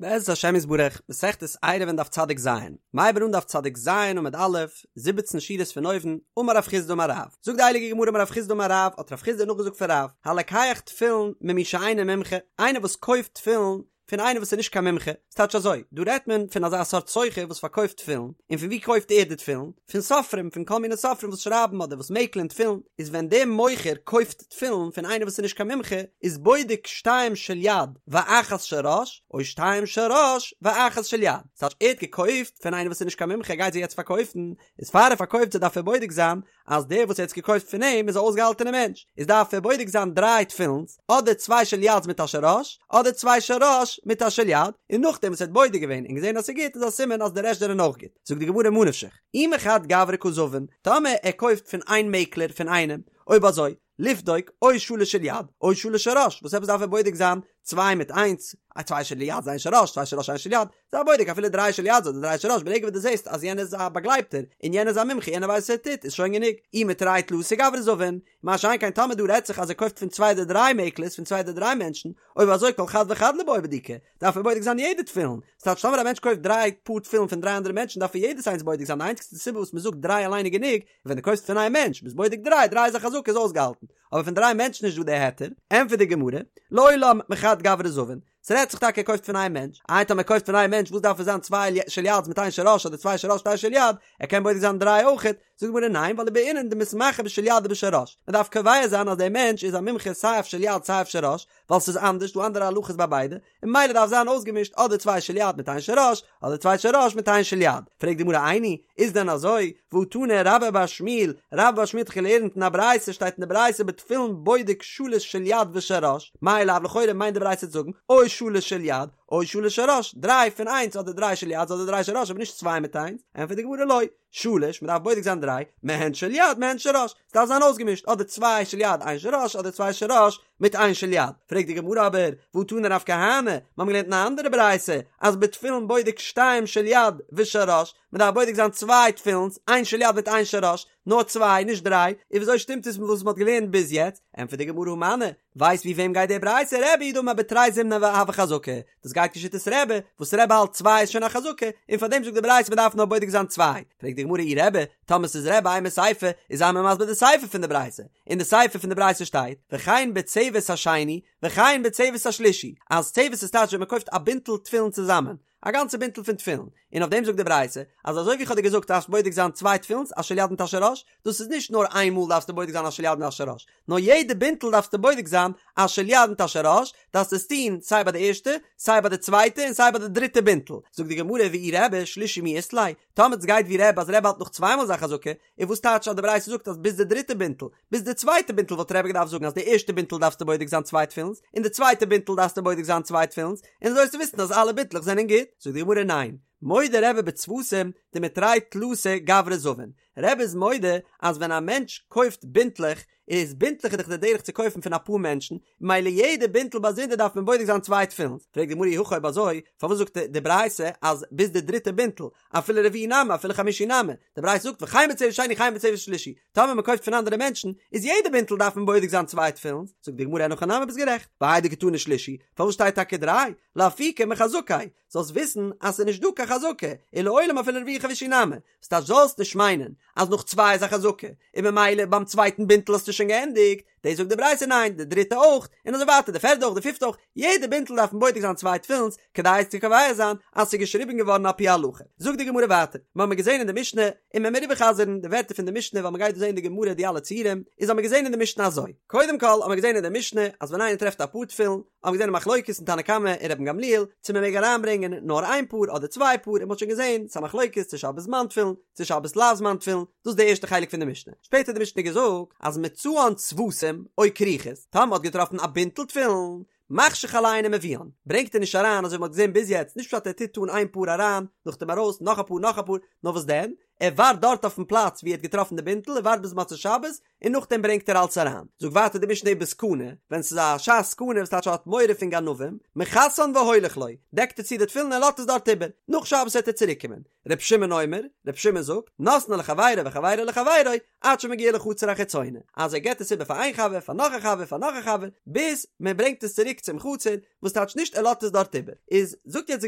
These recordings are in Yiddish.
בעזרת השם יתברך, מסכת עירובין דף צדיק ז, מ'הייבן אן דף צדיק ז עמוד א', זיבעצן שורות פון אויבן, אמר רב חסדא אמר רב, זאגט די הייליגע גמרא אמר רב חסדא אמר רב, האט רב חסדא נאכגעזאגט פון רב, הלוקח תפילין ממי שאינו מומחה, איינער וואס קויפט תפילין פון איינער וואס איז נישט קיין מומחה, ס'טייטש אזוי, דא רעדט מען פון אזא סארט סוחר וואס פארקויפט תפילין, און פון וואו קויפט ער די תפילין? פון סופרים, פון כל מיני סופרים וואס שרייבן אדער וואס מעקלען תפילין, איז ווען דער מוכר קויפט תפילין פון איינער וואס איז נישט קיין מומחה, איז בודק שתיים של יד ואחת של ראש, או שתיים של ראש ואחת של יד. ס'טייטש ער האט געקויפט פון איינער וואס איז נישט קיין מומחה ער גייט זיי יעצט פארקויפן, איז פאר ער פארקויפט זיי דארף ער בודק זיין אז דער וואס ער האט עס געקויפט פון אים איז א אויסגעהאלטענער מענטש, איז דארף ער בודק זיין דריי תפילין'ס, אדער צוויי של יד'ס מיט א של ראש, אדער צוויי של ראש מיט א של יד, און נאכדעם וואס ער האט בודק געווען און געזען אז ס'איז גוט איז א סימן אז די רעשט זענען אויך גוט. זאגט די גמרא ממה נפשך, אי מחד גברא קא זבין, טאמער ער קויפט פון איין מעקלער פון איינעם, אויב אזוי, לבדוק, או שלש של יד, או שלש של ראש, וואס עפעס דארף ער בודק זיין צוויי מיט איינס, א צוויי של יד איין של ראש, צוויי של ראש איין של יד, זיי בודק אפילו דריי של יד אדער דריי של ראש, ברגע וואס דו זעסט אז יענער איז א באגלייבטער, און יענער איז א מומחה, יענער ווייסט וואס ער טוט, איז שוין גענוג, אי מתרי תלתא גברי זבין, מה שאין כן טאמער דא רעדט זיך אז ער קויפט פון צוויי אדער דריי מעקלערס, פון צוויי אדער דריי מענטשן, אויב אזוי כל חד וחד ליבעי בדיקה, דארף ער בודק זיין יעדע תפילין, ס'טייטש טאמער א מענטש קויפט דריי פאר תפילין פון דריי אנדערע מענטשן דארף ער יעדעס איינס בודק זיין, די איינציגסטע סיבה וואס מ'זאגט דריי אליין איז גענוג, ווען דו קויפסט פון איין מענטש ביסט בודק דריי, דריי איז א חזקה איז אויסגעהאלטן, אבער פון דריי מענטשן איז נישט דא די היתר, ענטפערט די גמרא, לעולם מחד גברא זבין, ס'רעדט זיך טאקע ער קויפט פון איין מענטש, איי טאמער ער קויפט פון איין מענטש וואס דארף עס זיין צוויי של יד'ס מיט איין של ראש אדער צוויי של ראש מיט איין של יד, ער קען בודק זיין דריי אויכעט, זאגט די גמרא ניין ווייל ובעינן דמתמחי בשל יד ובשל ראש, מ'דארף קובע זיין אז דער מענטש איז א מומחה סיי אויף של יד סיי אויף של ראש, ווייל ס'איז אנדערש דא אנדערע הלכות ביי ביידע, און ממילא דארף זיין אויסגעמישט אדער צוויי של יד מיט איין של ראש, אדער צוויי של ראש מיט איין של יד. פרעגט די גמרא איני, איז דען אזוי? והא תנא רבה בר שמואל, רבה בר שמואל האט דאך געלערנט אין א ברייתא, שטייט אין די ברייתא בתפילין בודק שלש של יד ושל ראש, מאי לאו לכאורה מיינט די ברייתא צו זאגן, או שלש של יד, או שלש של ראש, דריי פון איינס אדער דריי של יד אדער דריי של ראש אבער נישט צוויי מיט איינס, ענטפערט די גמרא לא, שלש, מען דארף בודק זיין דריי, מהן של יד מהן של ראש, ס'דארף זיין אויסגעמישט, אדער צוויי של יד איין של ראש, אדער צוויי של ראש מיט איין של יד. פרעגט די גמרא אבער, והא תנא רב כהנא, מיר האבן געלערנט אין א אנדערע ברייתא, אז בתפילין בודק שתיים של יד ושל ראש, מען דארף בודק זיין צוויי תפילינס, איין של יד מיט איין של ראש, נאר צוויי, נישט דריי, און וויאזוי שטימט עס מיט וואס מען האט געלערנט ביז יעצט? ענטפערט די גמרא הא מני, ווייסט ווי וועם גייט די ברייתא? רבי היא דאמר בתרי זימני הוי חזקה, דאס גייט כשיטת רבי, וואס רבי האלט צוויי איז שוין א חזקה, און פאר דעם זאגט די ברייתא מען דארף נאר בודק זיין צוויי. פרעגט די גמרא אי רבי, טאמער ס'איז רבי אימא סיפא, איז זיי מיר מסביר די סיפא פון די ברייתא. אין די סיפא פון די ברייתא שטייט, וכן בצוות השני, וכן בצוות השלישי, אז צוות איז טייטש ווען מען קויפט א בינטל תפילין צוזאמען, א גאנצע בינטל פון תפילין, און אויף דעם זאגט די ברייתא, אז אזוי ווי איך האב דיר געזאגט דארפסט בודק זיין צוויי תפילינס א של יד מיט א של ראש, דאס איז נישט נאר איין מאל דארפסטו בודק זיין א של יד מיט א של ראש, נאר יעדע בינטל דארפסטו בודק זיין א של יד מיט א של ראש, דארפסט עס טון סיי ביי די ערשטע, סיי ביי די צווייטע און סיי ביי די דריטע בינטל. זאגט די גמרא ואי רבי שלישי מי אית ליה, טאמער עס גייט ווי רבי אז רבי האלט נאך צוויי מאל איז א חזקה, און וואס טייטש אז די ברייתא זאגט אז ביז די דריטע בינטל, ביז די צווייטע בינטל וואלט רבי געדארפט זאגן אז די ערשטע בינטל דארפסטו בודק זיין צוויי תפילינס, און די צווייטע בינטל דארפסטו בודק זיין צוויי תפילינס, און אזוי וועסטו וויסן אז אלע בינטלעך זענען גוט. זאגט די גמרא ניין, מודה רבי בצוותים דמתרי תלתא גברי זבין, רבי איז מודה אז ווען א מענטש קויפט בינטלעך, איז בינטלעך איז דאך די דרך צו קויפן פון אפאר מענטשן, ממילא יעדע בינטל באזונדער דארף מען בודק זיין צוויי תפילין. פרעגט די גמרא אי הכי אויב אזוי, פארוואס זאגט די ברייתא אז ביז די דריטע בינטל, אפילו רביעי נמי אפילו חמישי נמי, די ברייתא זאגט וכן בצוות שני וכן בצוות שלישי, טאמער מען קויפט פון אנדערע מענטשן, איז יעדע בינטל דארף מען בודק זיין צוויי תפילין, זאגט די גמרא אין הכי נמי ביסט גערעכט, והאי דקתני שלישי, פארוואס שטייט טאקע דריי, לאפוקי מחזקה, זאלסט וויסן אז ס'איז נישט דא קיין חזקה, ולעולם אפילו רביעי חמישי נמי, ס'טייטש זאלסט נישט מיינען אז נאך צוויי איז א חזקה, און ממילא ביים צווייטן בינטל האסטו שוין געענדיגט, דאס זאגט די ברייתא ניין, די דריטע אויך, און אזוי ווייטער די פערדע אויך די פיפטע אויך, יעדע בינטל דארף מען בודק זיין צוויי תפילינס כדי עס צו קובע זיין אז ס'איז געשריבן געווארן על פי הלכה. זאגט די גמרא ווייטער, מיר האבן געזען אין די משנה, און מען מיר איבערחזר'ן די ווערטער פון די משנה ווייל מ'גייט דא זען אין די גמרא די אלע ציורים, איז האבן מיר געזען אין די משנה אזוי, קודם כל האבן מיר געזען אין די משנה אז ווען איינער טרעפט א פאר תפילין, האבן געזען א מחלוקת אין תנא קמא און רבן גמליאל צו מען מעג אריינברענגען נאר איין פאר אדער צוויי פאר און מען האט שוין געזען ס'א מחלוקת צו שבת זמן תפילין צו שבת לאו זמן תפילין דאס איז די ערשטע חלק פון די משנה שפעטער האט די משנה געזאגט אז מצאן צוותים או כריכות טאמער מ'האט געטראפן א בינטל תפילין מחשיך עליהן ומביאן ברענגט ער נישט אריין אזוי ווי מען האט געזען ביז יעצט נישט פשט ער טוט אן איין פאר אריין נאכדעם ארויס נאך א פאר נאך א פאר נאר וואס דען? ער ווארט דארט אויפן פלאץ ווי ער האט געטראפן די בינטל, ער ווארט ביז מוצאי שבת, און נאכדעם ברענגט ער אלץ אריין. זאגט ווייטער די משנה ובסכנה, ווען ס'איז א שעת סכנה וואס טייטש ער האט מורא פון גנבים, מכסן והולך לו, דעקט ער צו די תפילין און לאזט עס דארט איבער, נאך שבת וועט ער צוריק קומען. ר' שמעון אומר, ר' שמעון זאגט, נותנו לחבירו וחבירו לחבירו, עד שמגיע לחצר החיצונה, אז ער געבט עס איבער פאר איין חבר, פאר נאך א חבר, פאר נאך א חבר, ביז מען ברענגט עס צוריק צום חצר, וואס טייטש נישט ער לאזט עס דארט איבער. איז זאגט יעצט די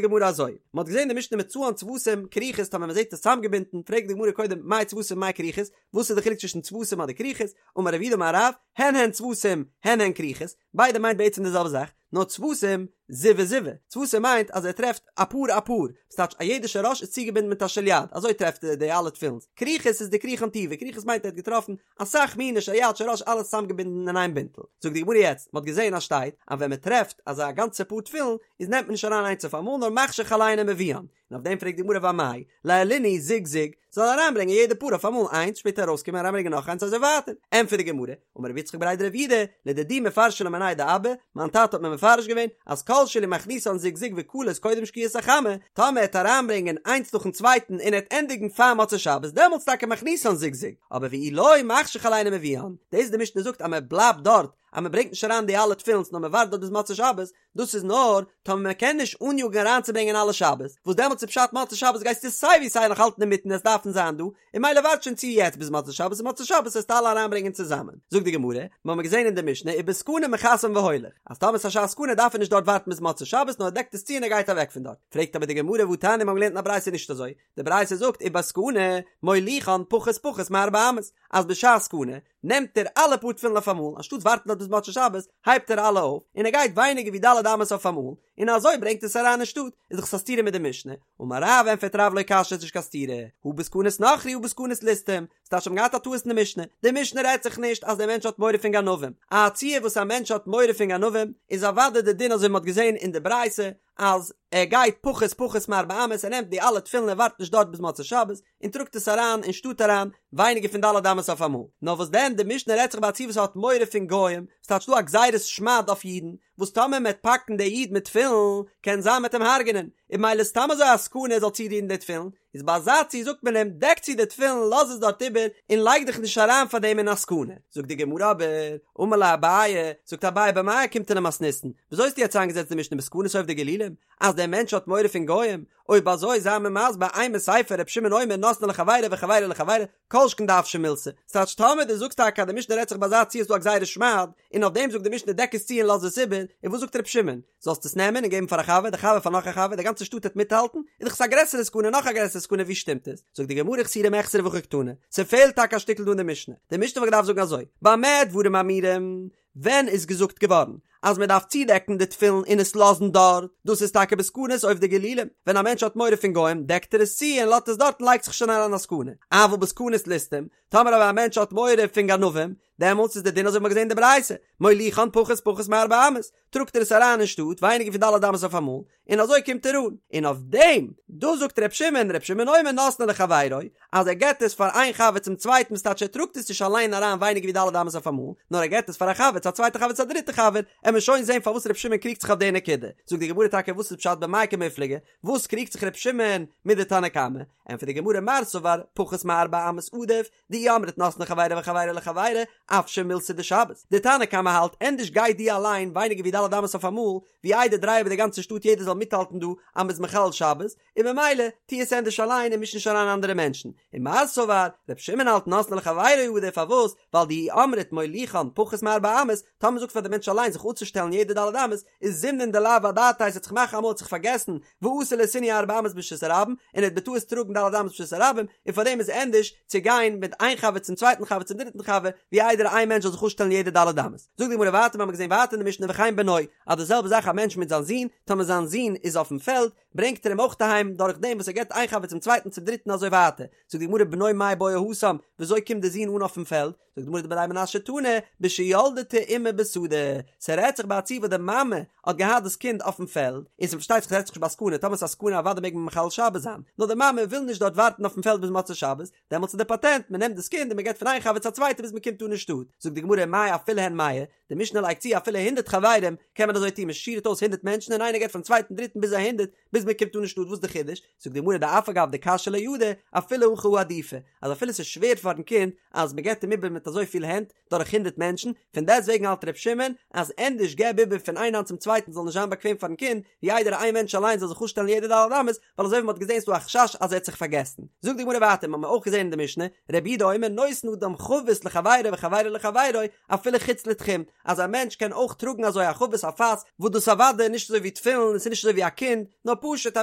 גמרא אזוי, מען האט געזען די משנה מצאן צוותים כרוכות טאמער מען זעט עס צוזאמגעבינדן, פרעגט די גמרא קודם מאי צוותים מאי כרוכות, וואס איז די חילוק צווישן צוותים אדער כרוכות, אמר רב יהודה אמר רב, הן הן צוותים הן הן כרוכות, ביידע מיינט בעצם די זעלבע זאך, נאר צוותים זיוי זיוי, צוותים מיינט אז ער טרעפט א פאר א פאר, וואס טייטש א יעדע של ראש איז צוגעבינדן מיט א של יד, אזוי טרעפט ער די אלע תפילינס, כרוכות איז דכריכן טובא, כרוכות מיינט ער האט געטראפן אסאך מיני של יד של ראש אלעס צוזאמגעבינדן אין איין בינטל. זאגט די גמרא יעצט, מען האט געזען אז שטייט אז ווען מען טרעפט אזא גאנצע פאר תפילין איז נעמט מען נישט אריין איינס אויף אמאל נאר מחשיך עליהן ומביאן, און אויף דעם פרעגט די גמרא ואמאי ליעלינהו זוג זוג, זאל אריינברענגען יעדע פאר אויף אמאל איינס שפעטער ארויסקומען אריינברענגען נאך איינס אזוי ווייטער, ענטפערט די גמרא, אמר רב יצחק בריה דרב יהודה, לדידי מפרשא לי מיניה דאבא, מיין טאטע האט מיר מפרש געווען, אז כל שאילו מכניסן זוג זוג וכלות קודם שקיעת החמה, טאמער ער העט אריינברענגען איינס נאכן צווייטן און ער העט ענדיגן פאר מוצאי שבת דעמאלטס טאקע מכניסן זוג זוג, אבער ואי לא מחשיך עליהן ומביאן, דאס די משנה זאגט אז מען בלייבט דארט אז מען ברענגט נישט אריין די אלע תפילינס נאר מען ווארט דארט ביז מוצאי שבת, דאס איז נאר טאמער מען קען נישט אניאגן אריינצוברענגען אלע שבת, וואס דעמאלטס איז פשט מוצאי שבת גייסטו סיי ווי סיי נאך האלטן אינמיטן עס דארפן זיין דא, און ממילא ווארט שוין צו יעצט ביז מוצאי שבת און מוצאי שבת וועסטו אלע אריינברענגען צוזאמען. זאגט די גמרא, מיר האבן געזען אין די משנה ובסכנה מכסן והולך, אז טאמער ס'איז א שעת סכנה דארף ער נישט דארט ווארטן ביז מוצאי שבת נאר ער דעקט עס צו און ער גייט אוועק פון דארט, פרעגט אבער די גמרא והתניא מיר האבן געלערנט אין א ברייתא נישט אזוי, די ברייתא זאגט ובסכנה מוליכן פחות פחות מארבע אמות, אז בשעת סכנה נעמט ער אלע פאר תפילין אויף אמאל, אנשטאט ווארטן דארט ביז מוצאי שבת, הייבט ער אלע אויף, און ער גייט ווייניגער ווי ד' אמות אויף אמאל, און אזוי ברענגט עס אריין אין שטאט, איז דאך עס א סתירה מיט די משנה, אמר רב ענטפערט רב לא קשיא ס'איז נישט קיין סתירה, הא בסכנת נכרי הא בסכנת ליסטים, ס'טייטש מ'האט געהאט א טעות אין די משנה, די משנה רעדט זיך נישט אז דער מענטש האט מורא פון גנבים, א ציור וואס א מענטש האט מורא פון גנבים איז אוודאי די דין אזוי ווי מ'האט געזען אין די ברייתא אז ער גייט פחות פחות מארבע אמות ער נעמט די אלע תפילין ער ווארט נישט דארט ביז מוצאי שבת און טראגט עס אריין אין שטאט אריין ווייניגער פון ד' אמות אויף אמאל, נאר וואס דען די משנה רעדט זיך ביי א ציור וואס האט מורא פון גוים, ס'טייטש דא א גזירת שמד אויף אידן, וואס טאמער מ'עט פאקן די איד מיט תפילין קען זיין מ'עט אים הרג'נען, און ממילא סתם אזוי א סכנה ער זאל צורירן די תפילין, איז ביי אזא ציור זאגט מען אים דעק צו די תפילין לאז עס דארט איבער און לייג דיך נישט אריין פאר דעם אין א סכנה, זאגט די גמרא אבער, אמר ליה אביי, זאגט אביי במאי אוקימתא למתניתין, וויאזוי האסטו יעצט איינגעזעצט די משנה בסכנת עובדי גלילים, אז דער מענטש האט מורא פון גוים, אויב אזוי זיי מיר מסביר אימא סיפא ר' שמעון אומר נותנו לחבירו וחבירו לחבירו, כל שכן דאפשי מילתא, ס'טייטש טאמער דו זאגסט טאקע אז די משנה רעדט זיך ביי אזא ציור איז דא א גזירת שמד, און אויף דעם זאגט די משנה דעק עס צו און לאז עס איבער, און וואס זאגט ר' שמעון? זאלסט עס נעמען און געבן פאר א חבר, די חבר פאר נאך א חבר, די גאנצע שטאט העט מיטהאלטן, איז דאך עס א גרעסערע סכנה נאך א גרעסערע סכנה ווי שטימט עס? זאגט די גמרא חסורי מחסרא והכי קתני, ס'פעלט טאקע א שטיקל דא אין די משנה, די משנה וואלט געדארפט זאגן אזוי, במה דברים אמורים, ווען איז געזאגט געווארן אז מען דארף צודעקן די תפילין און עס לאזן דארט? דאס איז טאקע בסכנת עובדי גלילים, ווען א מענטש האט מורא פון גוים דעקט ער עס צו און לאזט עס דארט און לייגט זיך שוין אריין א סכנה, אבל בסכנת ליסטים, טאמער אבער א מענטש האט מורא פון גנבים, דעמאלטס איז די דין אזוי ווי מ'האט געזען אין די ברייתא, מוליכן פחות פחות מארבע אמות, טראגט ער עס אריין אין שטאט ווייניגער פון ד' אמות אויף אמאל, און אזוי קומט ער אן. און אויף דעם, דא זאגט ר' שמעון, ר' שמעון אומר נותנו לחבירו, אז ער געבט עס פאר איין חבר צום צווייטן וואס טייטש ער טראגט עס נישט אליין אריין ווייניגער ווי ד' אמות אויף אמאל, נאר ער געבט עס פאר א חבר צו א צווייטע חבר צו א דריטע חבר, עמיר שוין זען פארוואס ר' שמעון קריגט זיך אויף די נקודה. זאגט די גמרא טאקע וואס איז פשט במאי קמיפלגי, וואס קריגט זיך ר' שמעון מיט די תנא קמא? ענטפערט די גמרא מר סבר פחות מארבע אמות עדיף, דאי אמרת נותנו לחבירו וחבירו לחבירו, אפשי מילתא דשבת. די תנא קמא האלט ענדערש גיי דו אליין ווייניגער ווי ד' אמות אויף אמאל, ווי איידער דריי איבער די גאנצע שטאט יעדער זאל מיטהאלטן דא אז מ'איז מחלל שבת, און ממילא טו עס ענדערש אליין און מיש נישט אריין אנדערע מענטשן. און מר סבר, ר' שמעון האלט נותנו לחבירו עדיף פארוואס? ווייל דאי אמרת מוליכן פחות מארבע אמות, טאמער מ'זאגט פאר די מענטש אליין זיך אפצושטעלן יעדע ד' אמות, איז זימנין דלאו אדעתיה ס'עט זיך מאכן אמאל האט זיך פארגעסן ואתי לאתויינהו ארבע אמות ברשות הרבים און ער האט בטעות טראגן ד' אמות ברשות הרבים און פארדעם איז ענדערש צו גיין מיט איין חבר צום צווייטן חבר צום דריטן חבר ווי איידער איין מענטש זאל זיך אפשטעלן יעדע ד' אמות. זאגט די גמרא ווייטער מיר האבן געזען ווייטער אין די משנה וכן בנו אז די זעלבע זאך א מענטש מיט זיין זון טאמער זיין זון איז אויפן פעלד ברענגט ער אים אויך אהיים דורך דעם וואס ער געבט איין חבר צום צווייטן צום דריטן אזוי ווייטער זאגט די גמרא בנו מאי בעי התם וויאזוי קומט די זון אן אויפן פעלד זאגט די גמרא דבי מנשיא תנא בשילדתו אמו בשדה, ס'רעדט זיך ביי א ציור וואס די מאמע האט געהאט דאס קינד אויפן פעלד, און ס'פארשטייט זיך ס'רעדט זיך נישט ביי סכנה, טאמער ס'איז א סכנה אוודאי מעג מען מחלל שבת זיין, נאר די מאמע וויל נישט דארט ווארטן אויפן פעלד ביז מוצאי שבת, דעמאלטס איז די פאטענט, מען נעמט דאס קינד און מען געבט פון איין חבר צו א צווייטע ביז מען קומט אן אין שטאט, זאגט די גמרא מאי אפילו הן מאה, די משנה לייגט צו אפילו הונדרעט חברים קען מען אזוי טון, מען שירט אויס הונדרעט מענטשן און איינער געבט פארן צווייטן דריטן ביז א הונדרעט, ביז. ביז מען קומט אן אין שטאט וואס די חידוש? זאגט די גמרא דאף על גב דקשיא ליה ידא אפילו הכי הא עדיפא אז אפילו ס'איז שווער פארן קינד אז מ'געט אים איבער מיט אזוי פיל הענט דורך הונדרעט מענטשן, פון דעסט וועגן האלט ר' שמעון אז ענדערש געב איבער פון איין האנט צום צווייטן זאל נישט זיין באקוועם פארן קינד ווי איידער איין מענטש אליין זאל זיך אפשטעלן יעדע ד' אמות ווייל אזוי ווי מ'האט געזען איז דא א חשש אז ער האט זיך פארגעסן. זאגט די גמרא ווייטער מ'האמיר אויך געזען אין די משנה רבי יהודה אומר נותן אדם חבית לחבירו וחבירו לחבירו אפילו חוץ לתחום אז א מענטש קען אויך טראגן אזוי א חבית א פאס וואס דאס אוודאי נישט אזוי ווי תפילין און ס'איז נישט אזוי ווי א קינד נאר פשוט א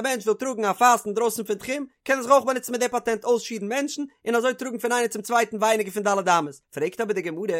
מענטש וויל טראגן א פאס אינדרויסן פון תחום קען ער זיך אויך באנוצן מיט די פאטענט אויסשירן מענטשן און אזוי טראגן פון איינער צום צווייטן ווייניגער פון ד' אמות. פרעגט אבער די גמרא,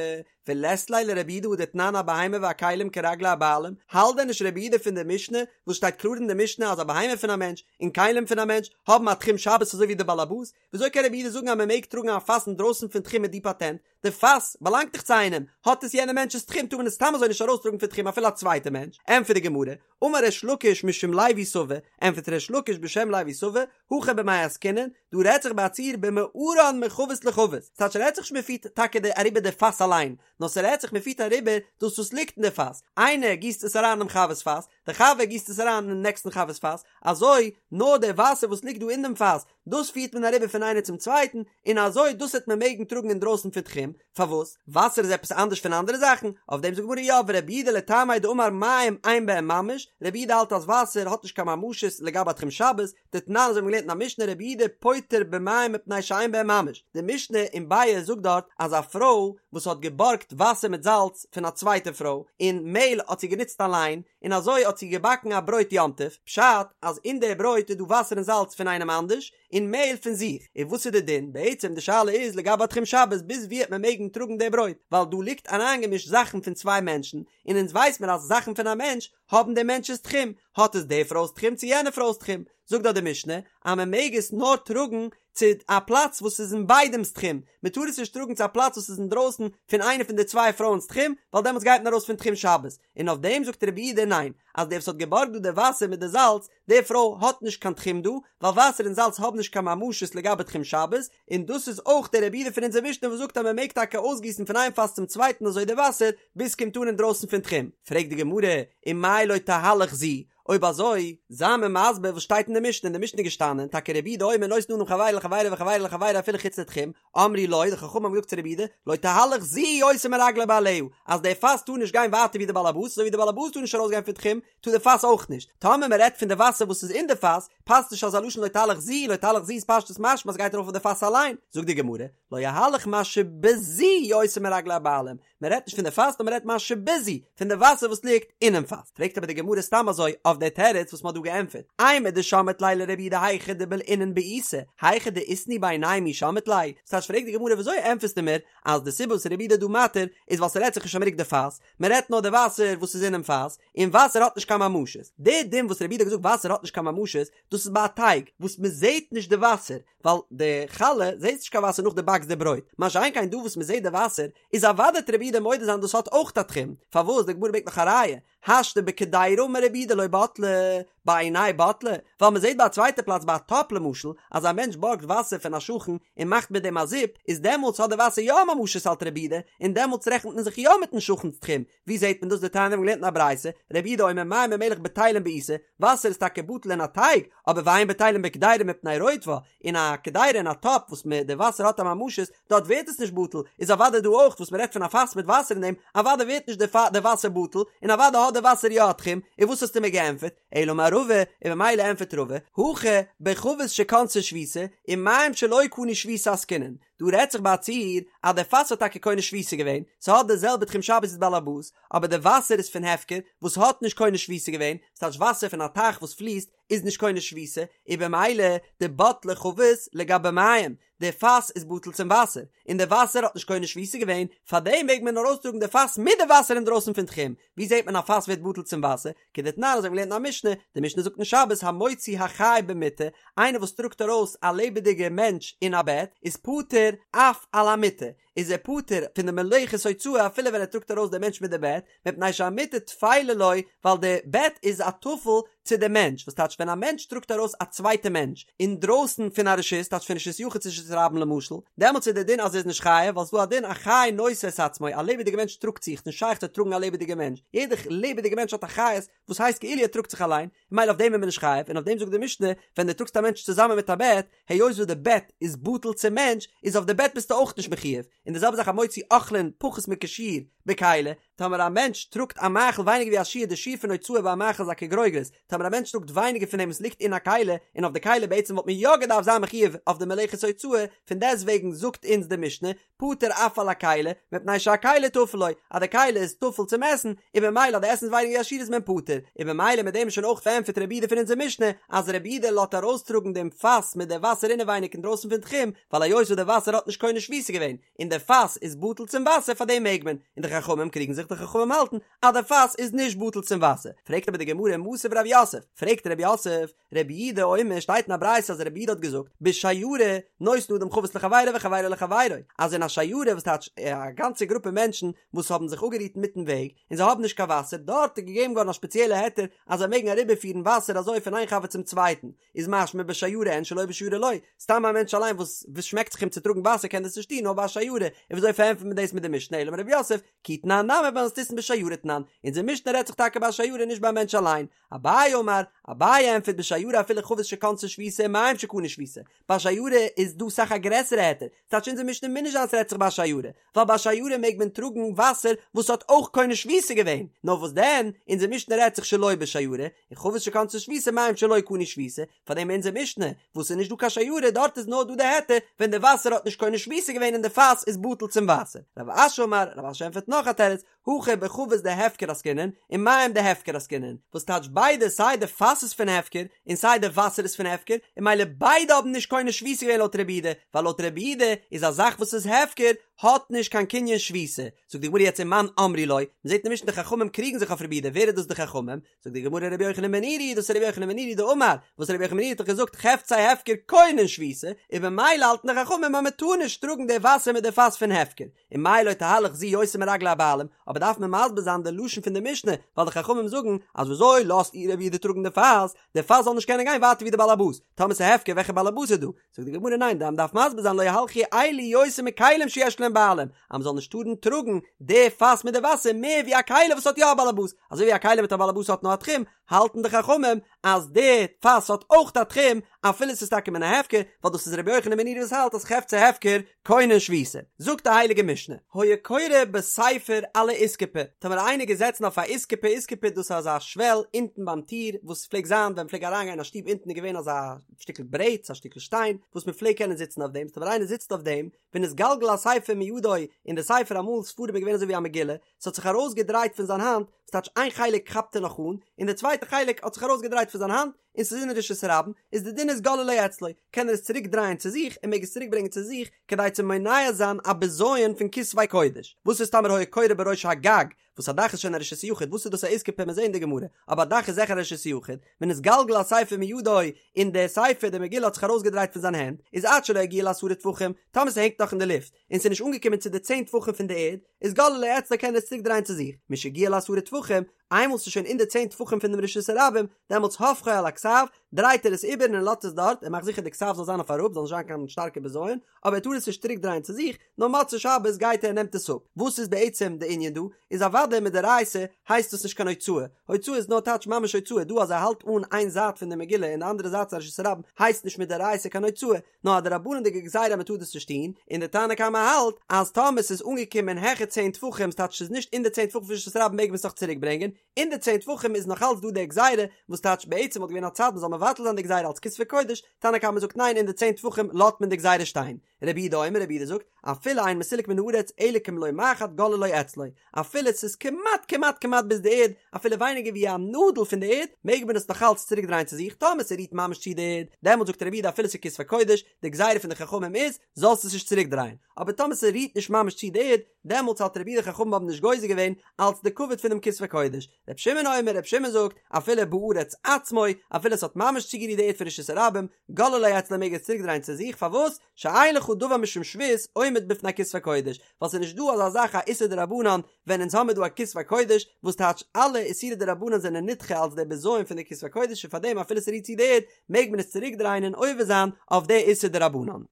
ולית ליה לרבי יהודה הא דתנן הבהמה והכלים כרגלי הבעלים, האלט דען נישט רבי יהודה פון די משנה וואס שטייט קלאר אין די משנה אז א בהמה פון א מענטש און כלים פון א מענטש האבן א תחום שבת אזוי ווי די בעלעבאס, וויאזוי קען רבי יהודה זאגן אז מען מעג טראגן א פאס אינדרויסן פון תחום מיט די פאטענט? די פאס באלאנגט דאך צו איינעם, האט עס יענער מענטש'ס תחום טאר מען עס סתם אזוי נישט ארויסטראגן פון תחום אפילו א צווייטע מענטש, ענטפערט די גמרא, אמר ריש לקיש משום לוי סבא, ענטפערט ריש לקיש בשם לוי סבא, הכא במאי עסקינן, דא רעדט זיך ביי א ציור במערן מחבית לחבית, ס'טייטש ס'רעדט זיך נישט מ'פירט טאקע די אריבער די פאס אליין, נאר ס'רעדט זיך מ'פירט אריבער דאס וואס ליגט אין די פאס, איינער גיסט עס אריין אינעם חבר'ס פאס, די חבר גיסט עס אריין אינעם נעקסטן חבר'ס פאס, אזוי נאר די וואסער וואס ליגט דא אין דעם פאס, דאס פירט מען אריבער פון איינער צום צווייטן, און אזוי דאס העט מען מעגן טראגן אינדרויסן פון תחום, פארוואס? וואסער איז עפעס אנדערש פון אנדערע זאכן? אויף דעם זאגט גמרא יא, ורבי יהודה לטעמיה דאמר מים אין בהם ממש, רבי יהודה האלט אז וואסער האט נישט קיין ממשות לגבי תחום שבת, דתנן אזוי האבן מיר געלערנט אין א משנה רבי יהודה פוטר במים מפני שאין בהם ממש, די משנה אין ביעא זאגט דארט אז א פרוי וואס האט געבארגט וואסער מיט זאלץ פון א צווייטע פרוי, און מעהל האט זי גענוצט אליין, און אזוי האט זי געבאקן א ברויט יום טוב, פשט אז אין די ברויט איז דא וואסער און זאלץ פון איינעם אנדערש, און מעהל פון זיך, און וואס איז די דין? בעצם די שאלה איז לגבי תחום שבת ביז ווי העט מען מעגן טראגן די ברויט, ווייל דא ליגט אריינגעמישט זאכן פון צוויי מענטשן, און אונז ווייס מיר אז זאכן פון א מענטש האבן דעם מענטש'ס תחום, האט עס די פרוי'ס תחום צו יענע פרוי'ס תחום, זאגט דארט די משנה אז מען מעג עס נאר טראגן צו א פלאץ וואס איז אין ביידעמ'ס תחום, מען טאר עס נישט טראגן צו א פלאץ וואס איז אינדרויסן פון איינע פון די צוויי פרויען'ס תחום, ווייל דעמאלטס גייט מען ארויס פון תחום שבת, און אויף דעם זאגט רבי יהודה ניין, אז דער וואס האט געבארגט דא די וואסער מיט די זאלץ, די פרוי האט נישט קיין תחום דא, ווייל וואסער און זאלץ האבן נישט קיין ממשות לגבי תחום שבת, און דאס איז אויך דער רבי יהודה פון אונזער משנה וואס זאגט אז מען מעג טאקע אויסגיסן פון איין פאס צום צווייטן אזוי די וואסער, ביז ס'קומט אן אינדרויסן פון תחום. פרעגט די גמרא, ומאי לא תהלך זו, אויב אזוי, זיי מיר מסביר וואס שטייט אין די משנה, אין די משנה איז געשטאנען, טאקע רבי יהודה אומר נותן אדם חבירו לחבירו וחבירו לחבירו אפילו חוץ לתחום, אמרו לו, די חכמים האבן געזאגט צו רבי יהודה, לא תהלך זו יותר מרגלי בעליה, אז די פאס טאר נישט גיין ווייטער ווי די בעל הבית, אזוי ווי די בעל הבית טאר נישט ארויסגיין פון תחום, טאר די פאס אויך נישט. טאמער מען רעדט פון די וואסער וואס איז אין די פאס, פאסט נישט אזא לשון לא תהלך זו, לא תהלך זו איז פשטות משמע אז ס'גייט ארויף אויף די פאס אליין. זאגט די גמרא, לא יהלך מה שבזו יותר מרגלי הבעלים, מען רעדט נישט פון די פאס נאר מען רעדט מה שבזו, פון די וואסער וואס ליגט אינעם פאס. פרעגט אבער די גמרא סתם אזוי אויף די תירוץ וואס מען האט דא געענטפערט, אימר דשמעת ליה לרבי יהודה היכא דבלעינן בעיסה, היכא דאיתנהו בעינייהו מי שמעת ליה, ס'טייטש פרעגט די גמרא וויאזוי ענטפערסטו מיר אז די סיבה וואס רבי יהודה איז דא מתיר איז ווייל ס'רעדט זיך נישט אז מ'רוקט די פאס, מען רעדט נאר די וואסער וואס איז אינעם פאס, און וואסער האט נישט קיין ממשות. די דין וואס רבי יהודה האט געזאגט וואסער האט נישט קיין ממשות, דאס איז ביי א טייג וואס מען זעט נישט די וואסער, ווייל די חלה זעסט נישט קיין וואסער נאך דו באקסט די ברויט, מה שאין כן דא וואס מען זעט די וואסער, איז אוודאי וועט רבי יהודה מודה זיין דאס האט אויך א תחום, פארוואס די גמרא ברענגט נאך א ראיה, השתא בקדירה אמר רבי יהודה לא בטלה, בעיניה בטלה, ווייל מען זעט ביי א צווייטע פלאץ ביי א טאפ למשל, אז א מענטש בארגט וואסער פון א שכן און מאכט מיט דעם א זופ, איז דעמאלטס האט די וואסער יא א ממשות האלט רבי יהודה, און דעמאלטס רעכנט מען זיך יא מיטן שכן'ס תחום, ווי זעט מען דאס דתניא מיר האבן געלערנט אין א ברייתא, רבי יהודה אומר מים ומלח בטלים בעיסה, וואסער איז טאקע בטל אין א טייג, אבער ואין בטלים בקדירה מפני רוטבה, אין א קדירה אין א טאפ וואס מען די וואסער האט א ממשות, דארט ווערט עס נישט בטל, איז אוודאי דא אויך וואס מען רעדט פון א פאס מיט וואסער אין דעם, אוודאי ווערט נישט די וואסער בטל, און אוודאי האט די וואסער יא א תחום, און וואס האסטו מיר געענטפערט? אלא אמר רבא, און ממילא ענטפערט רבא, הכא בחבית שקנתה שביתה, ומים שלא קנו שביתה עסקינן, דא רעדט זיך ביי א ציור אז די פאס האט טאקע קונה שביתה געווען, ס'האט די זעלבע תחום שבת ווי די בעל הבית, אבער די וואסער איז פון הפקר וואס האט נישט קונה שביתה געווען, ס'טייטש וואסער פון א טייך וואס פליסט איז נישט קונה שביתה, און במילא דבטלה חבית לגבי מים, די פאס איז בטל צום וואסער, און די וואסער האט נישט קונה שביתה געווען, פארדעם מעג מען ארויסטראגן די פאס מיט די וואסער אינדרויסן פון תחום, ווי זעט מען א פאס ווערט בטל צום וואסער? כדתנן אזוי ווי מ'לערנט אין א משנה, די משנה זאגט אין שבת המוציא החי במיטה, איינער וואס טראגט ארויס א לעבעדיגע מענטש אין א בעט, איז פטור אף על המיטה, איז ער פטור פון די מלאכת הוצאה אפילו ווען ער טראגט ארויס די מענטש מיט די בעט, מפני שהמיטה טפלה לו, ווייל די בעט איז א טפל צו די מענטש, וואס טייטש ווען א מענטש טראגט ארויס א צווייטע מענטש אינדרויסן פון א רשות, טייטש פון רשות יחיד צו רשות. רשות הרבים למשל, דעמאלטס איז דער דין אז ער איז נישט חייב, ווייל ס'איז דא א דין א חי נושא את עצמו, א לעבעדיגע מענטש טראגט זיך, ס'נישט שייך צו טראגן א לעבעדיגע מענטש, יעדע לעבעדיגע מענטש האט א חיות וואס הייסט כאילו ער טראגט זיך אליין, ממילא אויף דעם איז מען נישט חייב, און אויף דעם זאגט די משנה, ווען דו טראגסט א מענטש צוזאמען מיט א בעט, היות וואס די בעט איז בטל צום מענטש, איז אויף די בעט ביסטו אויך נישט מחויב, און די זעלבע זאך המוציא אוכלין פחות מכשיעור בכלי, טאמער א מענטש טראגט א מאכל ווייניגער ווי א שיעור, די שיעור פון הוצאה ביי א מאכל איז א כגרוגרת, טאמער א מענטש טראגט ווייניגער פון דעם וואס ליגט אין א כלי, און אויף די כלי בעצם וואלט מען יא געדארפט זיין מחויב אויף די מלאכת הוצאה, פון דעסטוועגן זאגט אונז די משנה, פטור אף על הכלי, מפני שהכלי טפל לו, אז די כלי איז טפל צום עסן, און במילא אז די עסן איז ווייניגער ווי א שיעור איז מען פטור, און במילא מיט דעם איז שוין אויך פארענטפערט רבי יהודה פון אונזער משנה, אז רבי יהודה לאזט ארויסטראגן דעם פאס מיט די וואסער אינעווייניג אינדרויסן פון תחום, ווייל היות וואס די וואסער האט נישט קונה שביתה געווען, און די פאס איז בטל צום וואסער פאר דעם מעג מען, און די חכמים קריגן זיך די חכמים האלטן אז די פאס איז נישט בטל צום וואסער, פרעגט אבער די גמרא מתיב רב יוסף, פרעגט רב יוסף, רבי יהודה אומר שטייט אין א ברייתא אז רבי יהודה האט געזאגט בשיירה נותן אדם חבית לחבירו וחבירו לחבירו אז אין א שיירה וואס טייטש א גאנצע גרופע מענטשן וואס האבן זיך אפגערוהט אינמיטן וועג און זיי האבן נישט קיין וואסער דארט איז געגעבן געווארן א שפעציעלע היתר אז זיי מעגן אריבערפירן וואסער אזוי פון איין חבר צום צווייטן איז משמע בשיירה אין שלא בשיירה לא סתם א מענטש אליין וואס וואס שמעקט זיך אים צו טראגן וואסער קען דאס נישט טון נאר ביי א שיירה און וויאזוי פארענטפערט מען דאס מיט די משנה אלא אמר רב יוסף כי תנן נמי במתניתין בשיירה תנן אונזער משנה רעדט זיך טאקע ביי א שיירה נישט ביי א מענטש אליין אביי אמר, אביי ענטפערט בשיירה אפילו חבית שקנתה שביתה ומים שקנו שביתה, ביי שיירה איז דא אסאך א גרעסערע היתר, ס'טייטש אונזער משנה מוז נישט זיין ס'רעדט זיך ביי שיירה, ווייל ביי שיירה מעג מען טראגן וואסער וואס האט אויך קונה שביתה געווען, נאר וואס דען, אונזער משנה רעדט זיך שלא בשיירה, און חבית שקנתה שביתה מים שלא קנו שביתה, פארדעם אונזער משנה, וואס איז נישט דא קיין שיירה דארט איז נאר דא די היתר ווען די וואסער האט נישט קונה שביתה געווען און די פאס איז בטל צום וואסער. רב אשי אמר, רב אשי ענטפערט נאך א תירוץ, הכא בחבית דהפקר עסקינן ומים דהפקר עסקינן, וואס טייטש ביידע סיי די פאס איז פון הפקר און סיי די וואסער איז פון הפקר, און ממילא ביידע האבן נישט קונה שביתה געווען לויט רבי יהודה, ווייל לויט רבי יהודה איז א זאך וואס איז הפקר האט נישט קיין קנין שביתה. זאגט די גמרא יעצט ומאן אמרי לו, מ'זעט אין משנה די חכמים קריגן זיך אויף רבי יהודה, ווער איז דאס די חכמים? זאגט די גמרא רבי יוחנן בן נורי, דאס איז רבי יוחנן בן נורי דאמר, וואס רבי יוחנן בן נורי האט דאך געזאגט חפצי הפקר קונין שביתה, און במילא האלטן די חכמים אז מ'טאר נישט טראגן די וואסער מיט די פאס פון הפקר. ומאי לא תהלך זו יותר מרגלי הבעלים, אבער דארף מען מסביר זיין די לשון פון די משנה, ווייל די חכמים זאגן אז וויאזוי לאזט איר רבי יהודה טראגן די פאס, די פאס זאל נישט קענען גיין ווייטער ווי די באלעבאס, טאמער ס'איז הפקר וועלכע באלעבאס איז דא? זאגט די גמרא ניין מען דארף מסביר זיין לא יהלכו אלו יותר מכלים שיש להם בעלים, אז מ'זאל נישט טארן טראגן די פאס מיט די וואסער מער ווי א כלי וואס האט יא א באלעבאס, אזוי ווי א כלי מיט א באלעבאס האט נאר א תחום, האלטן די חכמים אז די פאס האט אויך א תחום אפילו ס'איז טאקע מן ההפקר, ווייל דאס איז רבי יוחנן בן נורי וואס האלט אז חפצי הפקר קונין שביתה. זאגט די הייליגע משנה, היה קורא בספר על האיסקופה, טאמער איינער געזעצן אויף א איסקופה, איסקופה דאס איז אזא שוועל אונטן ביים טיר, וואס פלעגט זיין ווען מ'פלעג אריינגיין אין א שטוב אונטן איז געווען אזא שטיקל ברעט, א שטיקל שטיין, וואס מ'פלעג קענען זיצן אויף דעם, טאמער איינער זיצט אויף דעם, ונתגלגל הספר מידו, און די ספר אמאל ספרים איז געווען אזוי ווי א מגילה, ס'האט זיך ארויסגעדרייט פון זיין האנט, ס'טייטש איין חלק כאפט ער נאך אן, און די צווייטע חלק האט זיך ארויסגעדרייט פון זיין האנט, און ס'איז אין רשות הרבים, איז די דין איז גוללו אצלו, קען ער עס צוריק דרייען צו זיך, און מעג עס צוריק ברענגען צו זיך, כדי צו מונע זיין א בזיון פון כתבי קודש. וואס איז טאמער היה קורא בראש הגג, וואס א דאך איז שוין א רשות יחיד, וואס איז דאס א איסקופה מיר זעהן אין די גמרא, אבער א דאך איז זיכער א רשות יחיד, ונתגלגל הספר מידו, און די ספר, די מגילה האט זיך ארויסגעדרייט פון זיין הענט, איז עד שלא יגיע לעשרה טפחים, טאמער ס'הענגט נאך אין די לופט, און ס'איז נישט אנגעקומען צו די צען טפחים פון די ערד, איז גוללו אצלו קען ער עס צוריק דרייען צו זיך, משהגיע לעשרה טפחים, איינמאל ס'איז שוין אין די צען טפחים פון דעם רשות הרבים, דעמאלטס הופכו על הכתב, דרייט ער עס איבער און ער לאזט עס דארט, ער מאכט זיכער די כתב זאל זיין אויף אראפ, זאל נישט זיין קיין שטארקע בזיון, אבער ער טאר עס נישט צוריק דרייען צו זיך, נאר מוצאי שבת גייט ער און נעמט עס אפ. וואס איז בעצם די ענין דא? איז אוודאי מדאורייתא הייסט דאס נישט קיין הוצאה, הוצאה איז נאר טייטש ממש הוצאה, דא אז ער האלט אן איין זייט פון די מגילה און די אנדערע זייט איז א רשות הרבים הייסט נישט מדאורייתא קיין הוצאה, נאר א דרבנן'דיגע גזירה אז מען טאר דאס נישט טון, און די תנא קמא האלט אז טאמער ס'איז אנגעקומען העכער צען טפחים ס'טייטש ס'איז נישט אין די צען טפחים פון רשות הרבים מעג מען עס נאך צוריק ברענגען, אין די צען טפחים איז נאך אלץ דא די גזירה, וואס טייטש בעצם וואלט געווען א צד מען זאל מבטל זיין די גזירה אלץ כתבי קודש, תנא קמא זאגט ניין אין די צען טפחים לאזט מען די גזירה שטיין. רבי יהודה אומר רבי יהודה זאגט, אפילו אין מסולק מן הארץ אלא כמלא מחט גוללו אצלו, אפילו ס'איז כמעט כמעט כמעט ביז די ערד, אפילו ווייניגער ווי א נאדל פון די ערד, מעג מען עס נאך אלץ צוריק דרייען צו זיך, טאמער ס'רירט ממש צו די ערד, דעמאלט זאגט רבי יהודה אפילו ס'איז כתבי קודש, די גזירה פון די חכמים איז, זאלסט עס נישט צוריק דרייען, אבער טאמער ס'רירט נישט ממש צו די ערד, דעמאלטס האלט רבי יהודה חכמים האבן נישט גוזר געווען אלץ די כבוד פונעם כתבי קודש. רבי שמעון אומר, רבי שמעון זאגט, אפילו בארץ עצמו, אפילו עס האט ממש צוגערירט די ערד פון רשות הרבים, גוללו אצלו מעג ער עס צוריק דרייען צו זיך, פארוואס? שאין לך דבר משום שבות עומד בפני כתבי קודש, ווייל ס'איז נישט דא אזא זאך א איסור דרבנן ווען אונז האמיר דא א כתבי קודש, וואס טייטש אלע איסורי דרבנן זענען נדחה אלץ דער בזיון פון די כתבי קודש און פארדעם אפילו ס'רירט צו די ערד מעג מען עס צוריק דרייען און עובר זיין אויף די איסור דרבנן.